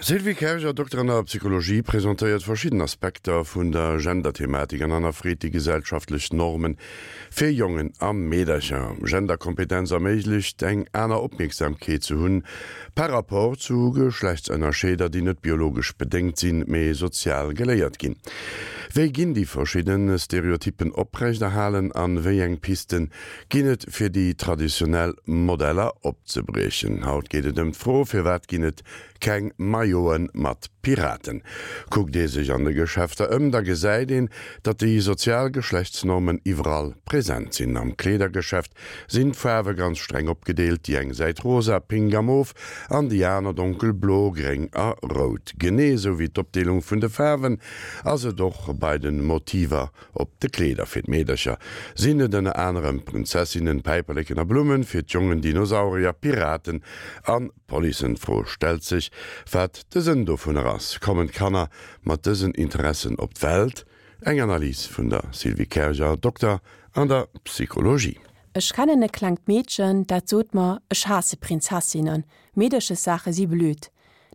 Sylvie Kerger, Dokter an der Psychologie, presentéiert verschidden Aspekter vun der Genderthematik an hannerfreet déi gesellschaftlech Normen fir Jongen a Meedercher. Genderkompetenz erméiglecht eng aner Opmierksamkeet ze hunn par rapport zu Geschlechtsënnerscheeder, déi net biologesch bedéngt sinn, mee sozial geléiert ginn. Wéi ginn déi verschidde Stereotyppen oprechterhalen an wéi eng Pisten ginn et fir déi traditionell Modeller opzebriechen. Haut geet et ëm d'Fro, Firwat ginn et keng Maillote mat Piraten? Kuckt ee sech an de Geschäfter ëm, da gesäit een, datt déi sozial Geschlechtsnormen iwwerall present sinn. Am Kleedergeschäft sinn d'Faarwe ganz streng opgedeelt, déi eng Säit rosa, pink a mof an déi aner donkelblo, gréng a rout. Genee esou wéi d'Opdeelung vun de Faarwen ass et och bei de Motiver Op de Kleeder fir d'Meedercher sinn et ënner anerem Prinzessinnen, Päiperleken a Blummen, fir d'Jongen Dinosaurier, Piraten an Policen. D'Fro stellt sech, wat de Sënn dovunner ass. Kommen d'Kanner mat dësen Interessen op d'Welt? Eng Analys vun der Sylvie Kerger, Dokter an der Psychologie. Ech kennen e klengt Meedchen, dat sot mer, Ech haasse Prinzessinnen, Meederchessaache si blöd.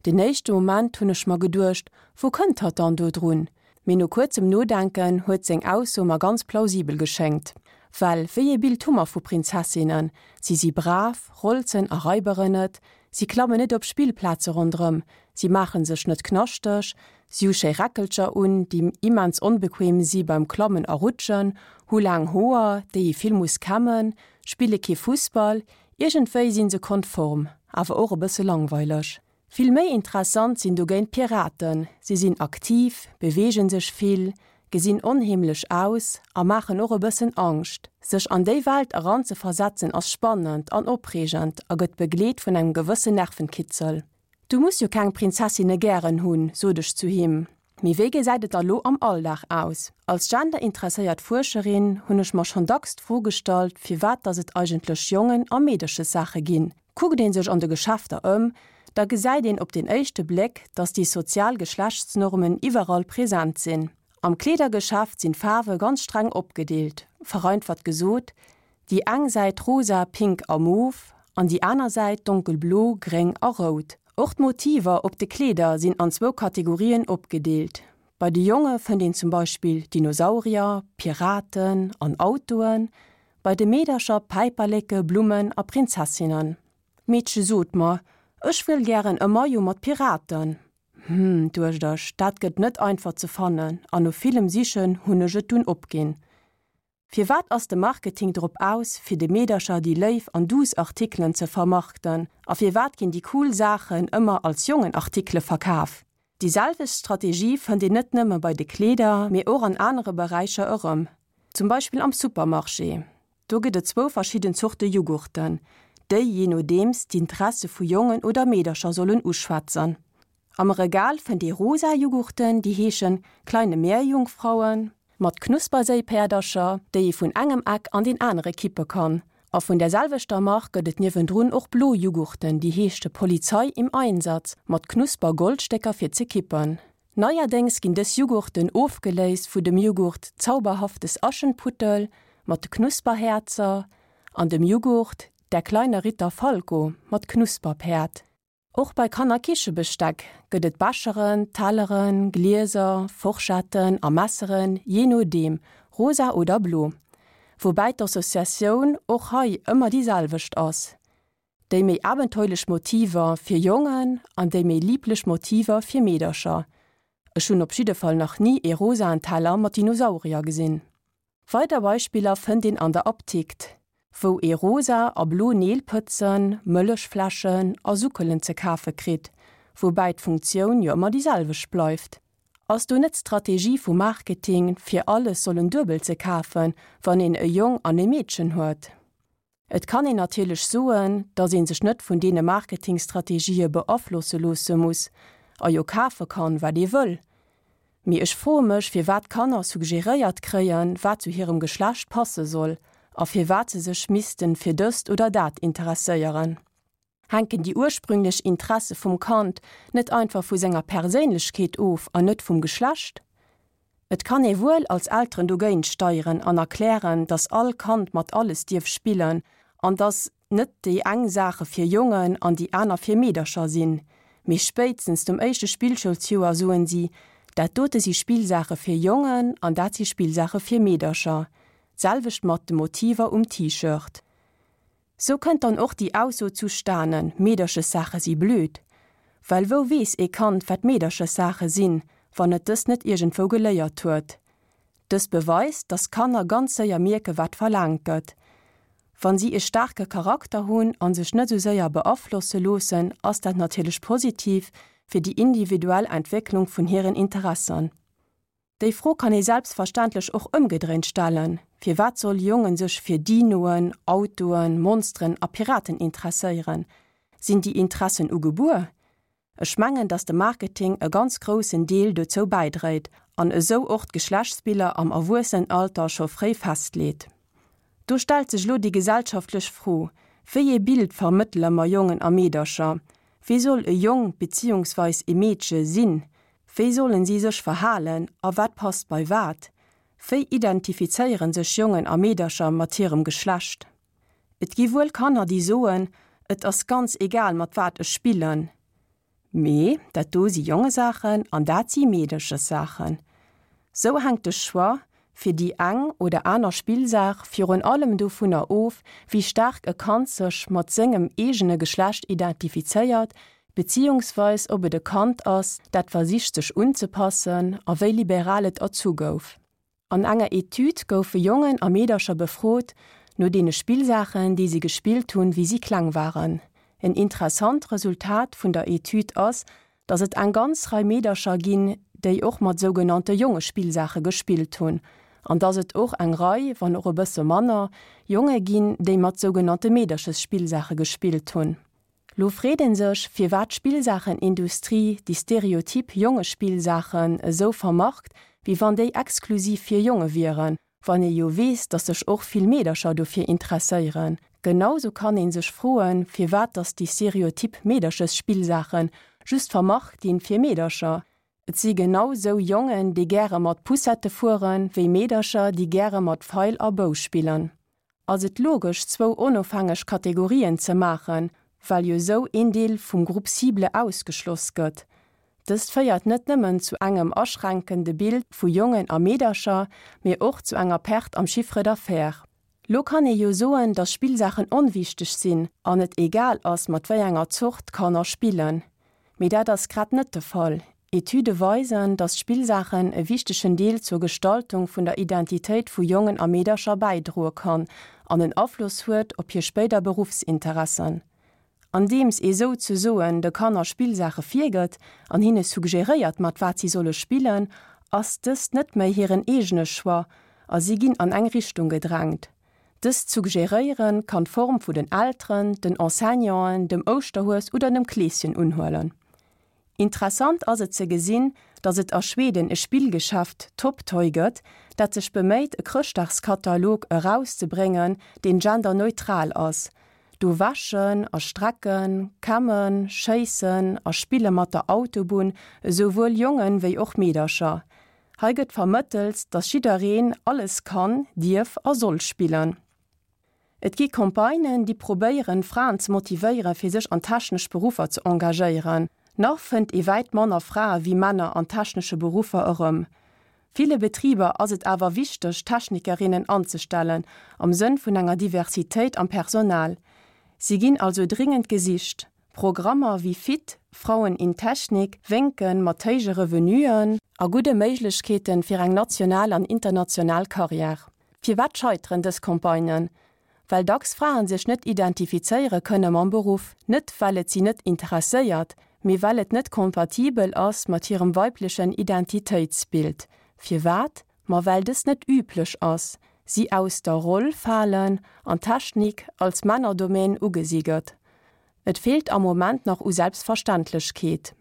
Den éischte Moment hunn ech mer geduecht, Wou kënnt hatt dann do drun? Mee no kuerzem Nodenken huet seng Ausso mer ganz plausibel geschéngt. Well wéi ee Bild hu mer vu Prinzessinnen? Si si brav, rolzen a raiberen net, si klammen net op Spillplaze ronderëm, si maache sech net knaschteg, si hu schéi Räckelcher un, déi immens onbequem si beim Klammen a Rutschen, hu laang Hoer, déi ee vill muss kämmen, spille kee Fussball. Iergendwéi si se konform, awer och e bësse langweileg. Vill méi interessant sinn dogéint d'Piraten, si sinn aktiv, beweegen sech vill, gesinn onheemlech aus a maachen och e bëssen Angscht. Sech an déi Welt eranzeversetzen ass spannend an opreegend a gëtt begleet vun engem gewëssen Nervenkitzel. Du muss jo keng Prinzessinne gären hunn, sot ech zu him. Mee wéi gesäit et da lo am Alldag aus? Als genderinteresséiert Fuerscherin hunn ech mer schonn dacks d'Fro gestallt, firwat dass et eigentlech Jongen a Meederchessaache ginn. Kuckt ee sech an de Geschäfter ëm, da gesäit een op den éischte Bléck, dass déi sozial Geschlechtsnormen iwwerall present sinn. Am Kleedergeschäft sinn d'Faarwe ganz streng opgedeelt, vereinfacht gesot, Déi eng Säit rosa, pink a mof an déi aner Säit donkelblo, gréng a rout. Och d'Motiver op de Kleeder sinn an zwou Kategorien opgedeelt. Bei de Jonge fënnt een zum Beispill Dinosaurier, Piraten an Autoen, bei de Meedercher Päiperleke, Blummen a Prinzessinnen. D'Meedche sot mer, Ech wëll gären e Maillot mat Piraten. Hm, duecht ech, dat gëtt net einfach ze fannen an no villem Sichen hunn ech et dunn opginn. Firwat ass de Marketing drop aus, fir de Meedercher déi léif an duuss Artikelen ze vermarkten? A firwat ginn déi cool Saachen ëmmer als Jongenartikele verkaf? Déi selwecht Strategie fënnt een net nëmme bei de Kleeder, mee och an anere Beräicher erëm. Zum Beispill am Supermarché. Do gëtt et zwou verschidden Zorte Jughurten, déi, jee nodeems, d'Interesse vu Jongen oder Meedercher sollen uschwätzen. Am Regal fënnt ee rosa Jughurten, déi heeschen Kleine Meerjungfrauen, mat Knusperséipäerdercher, déi ee vun engem Eck an deen anere kippe kann. A vun der selwechter Mark gëtt et niewendrun och blo Jughurten, déi heeschte Polizei im Einsatz, mat Knusper-Goldstécker fir ze kippen. Neierdéngs ginn dës Jughurten ofgeléist vu dem Jughurt Zauberhaftes Aschenputtel mat de Knusperhäerzer an dem Jughurt Der kleine Ritter Falco mat Knusperpäerd. Och bei Kannerkichebesteck gëtt et Becheren, Telleren, Glieser, Forschetten a Messeren, jee nodeem, rosa oder blo. Woubäi d'Associatioun och hei ëmmer déi selwecht ass, déi méi abenteuerlech Motiver fir Jongen an déi méi liblech Motiver fir Meedercher. Ech hunn op jidde Fall nach ni ee rosaen Teller mat Dinosaurier gesinn. Weider Beispiller fënnt een an der Aptikt, wou ee rosa a blo Neelpëtzen, Mëllechfläschen a Suckelen ze kafe kritt, woubäi d'Funktioun jo ëmmer déi selwecht bleift. Ass do net d'Strategie vum Marketing, fir alles sollen duebel ze kafen, wann een e Jong an e Meedchen huet? Et kann een natierlech soen, datt ee sech net vun deene Marketingstrategië beaflosse loosse muss a jo kafe kann, wat ee wëll. Mee ech froe mech, firwat d'Kanner suggeréiert kréien, wat zu hirem Geschlecht passe soll a firwat se sech missten fir dëst oder dat interesséieren. Hänken déi ursprünglech Interesse vum Kand net einfach vu senger Perséinlechkeet of an net vum Geschlecht? Et kann ee wuel als Elteren dogéint steieren an erklären, dass all Kand mat alles dierf spillen an dass net déi eng Saache fir Jongen an déi aner fir Meedercher sinn. Mee spéitstens nom éischte Spillschoulsjoer soen si, dat dote si Spillsaache fir Jongen an dat si Spillsaache fir Meedercher. D'selwecht mat de Motiver um T-Shirt. Sou kënnt dann och déi Ausso zustanen, Meederchessaache si blöd. Well wou weess ee Kand, wat Meederchessaache sinn, wann et dës net iergendwou geléiert huet? Dëst beweist, dass Kanner ganz séier mierke wat verlaangt gëtt. Wann si e staarke Charakter hunn an sech net sou séier beaflosse loossen, ass dat natierlech positiv fir déi individuell Entwécklung vun hiren Interessen. Déi Fro kann ee selbstverständlech och ëmgedréint stellen, Firwat soll Jongen sech fir Dinoen, Autoen, Monsteren a Piraten interesséieren? Sinn déi Interessen ugebuer? Ech mengen, dass de Marketing e ganz groussen Deel dozou bäidréit an esou och d'Geschlechtsbiller am Erwuessenenalter scho fréi festleet. Do stellt sech elo déi gesellschaftlech Fro, Wéi ee Bild vermëttele mer Jongen a Meedercher? Wéi soll e Jong beziehungsweis e Meedche sinn? Wéi sollen si sech verhalen a wat passt bei wat? Wéi identifizéiere sech Jongen a Meedercher mat hirem Geschlecht? Et gi wuel Kanner, déi soen, Et ass ganz egal, mat wat ech spillen. Mee dat do si Jongesaachen an dat si Meedeschessaachen. Sou hänkt de Choix fir déi eng oder aner Spillsaach virun allem dovunner of, wéi staark e Kand sech mat sengem eegene Geschlecht identifizéiert, beziehungsweis ob et e Kand ass, dat versicht sech unzepassen a wéi liberal et erzu gouf. An enger Etüd goufe Jongen a Meedercher befrot no deene Spillsaachen, déi si gespillt hunn, wéi si kleng waren. En interessant Resultat vun der Etüd ass, datt et eng ganz Rei Meedercher ginn, déi och mat sougenannte Jongespillsaache gespillt hunn, an datt et och eng Rei, wann och e bësse manner, Jonge ginn, déi mat sougenannte Meederchesspillsaache gespillt hunn. Lo freet een sech, firwat d'Spillsaachenindustrie déi stereotyp Jongespillsaachen esou vermarkt, wéi wann déi exklusiv fir Jonge wieren, wann ee jo weess, dass sech och vill Meedercher dofir interesséieren. Genausou kann een sech froen, firwat dass déi stereotyp Meederchesspillsaachen just vermarkt ginn fir Meedercher. Et si genau sou Jongen, déi gäre mat Poussette fueren, wéi Meedercher, déi gäre mat Feil a Bou spillen. Ass et logesch zwou onofhängeg Kategorien ze maachen, well jo sou een Deel vum Groupe cible ausgeschloss gëtt? Dëst féiert net nëmmen zu engem aschränkende Bild vu Jongen a Meedercher, mee och zu enger Perte am Chiffre d'affaires. Lo kann ee jo soen, dass Spillsaachen onwichteg sinn an et egal ass, mat wéi enger Zort d'Kanner spillen. Mee dat ass grad net de Fall. Etüde weisen, dass Spillsaachen e wichtegen Deel zur Gestaltung vun der Identitéit vu Jongen a Meedercher bäidroe kann an en Afloss huet op hir spéider Beruffsinteressen. Andeems ee souzesoen de Kanner Spillsaache virgëtt an hinne suggeréiert mat wat si solle spillen, ass dëst net méi hiren eegene Choix a si ginn an eng Richtung gedrängt. Dëst Suggeréiere kann d'Form vu den Elteren, den Enseignanten, dem Ouschterhues oder dem Kleeschen unhuelen. Interessant ass et ze gesinn, datt et a Schweden e Spillgeschäft, Top Toy, gëtt, dat sech beméit e Chrëschtdagskatalog erauszebréngen, deen genderneutral ass. Do wäschen a strecken, kämmen, schéissen a spille mat der Autobunn esouwuel Jongen wéi och Meedercher. Hei gëtt vermëttelt, datt jiddereen alles kann, dierf a soll spillen. Et gi Campagnen, déi probéieren, Fraen ze motivéieren, fir sech an technesch Beruffer ze engagéieren. Nach fënnt ee wäit manner Frae wéi Männer an technesche Beruffer erëm. Ville Betriber ass et awer wichteg, Technikerinnen anzestellen, am Sënn vun enger Diversitéit am Personal. Si ginn also dringend gesicht. Programmer wéi Fit, Frauen in Technik wénke mat héije Revenuen a gudde Méiglechkeeten fir eng national an international Karriär. Firwat scheiteren dës Campagnen? Well dacks Fraen sech net identifizéiere kënne mam Beruff, net well et si net interesséiert, mee well et net kompatibel ass mat hirem weiblechen Identitéitsbild. Firwat? Ma well dës net üblech ass, si aus der Roll falen an Technik als Männerdomaine ugesi gëtt. Et feelt am Moment nach u Selbstverständlechkeet.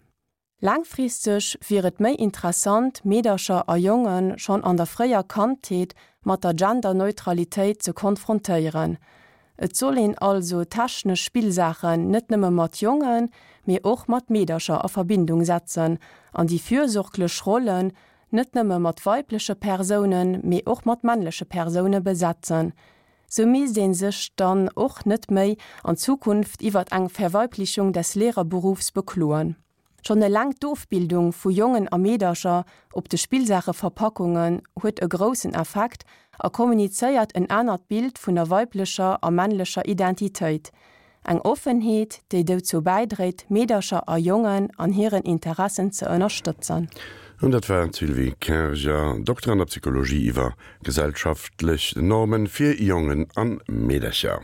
Laangfristeg wier et méi interessant, Meedercher a Jonge schonn an der fréier Kandheet mat der Genderneutralitéit ze konfrontéieren. Et soll een also technesch Spillsaachen net nëmme mat Jongen, mee och mat Meedercher a Verbindung setzen an déi fürsorglech Rollen net nëmme mat weibleche Persounen, mee och mat männleche Persoune besetzen. Sou misst ee sech dann och net méi an Zukunft iwwert eng Verweiblichung des Lehrerberufs bekloen. Schonn eleng d'Ofbildung vu Jongen a Meedercher op de Spillsaacheverpackungen huet e groussen Effekt a kommunizéiert en anert Bild vun der weiblecher a männlecher Identitéit. Eng Offenheet, déi dozou bäidréit, Meedercher a Jongen an hiren Interessen ze ënnerstëtzen. An dat war d'Sylvie Kerger, Dokter an der Psychologie iwwer gesellschaftlech Normen fir Jongen an Meedercher.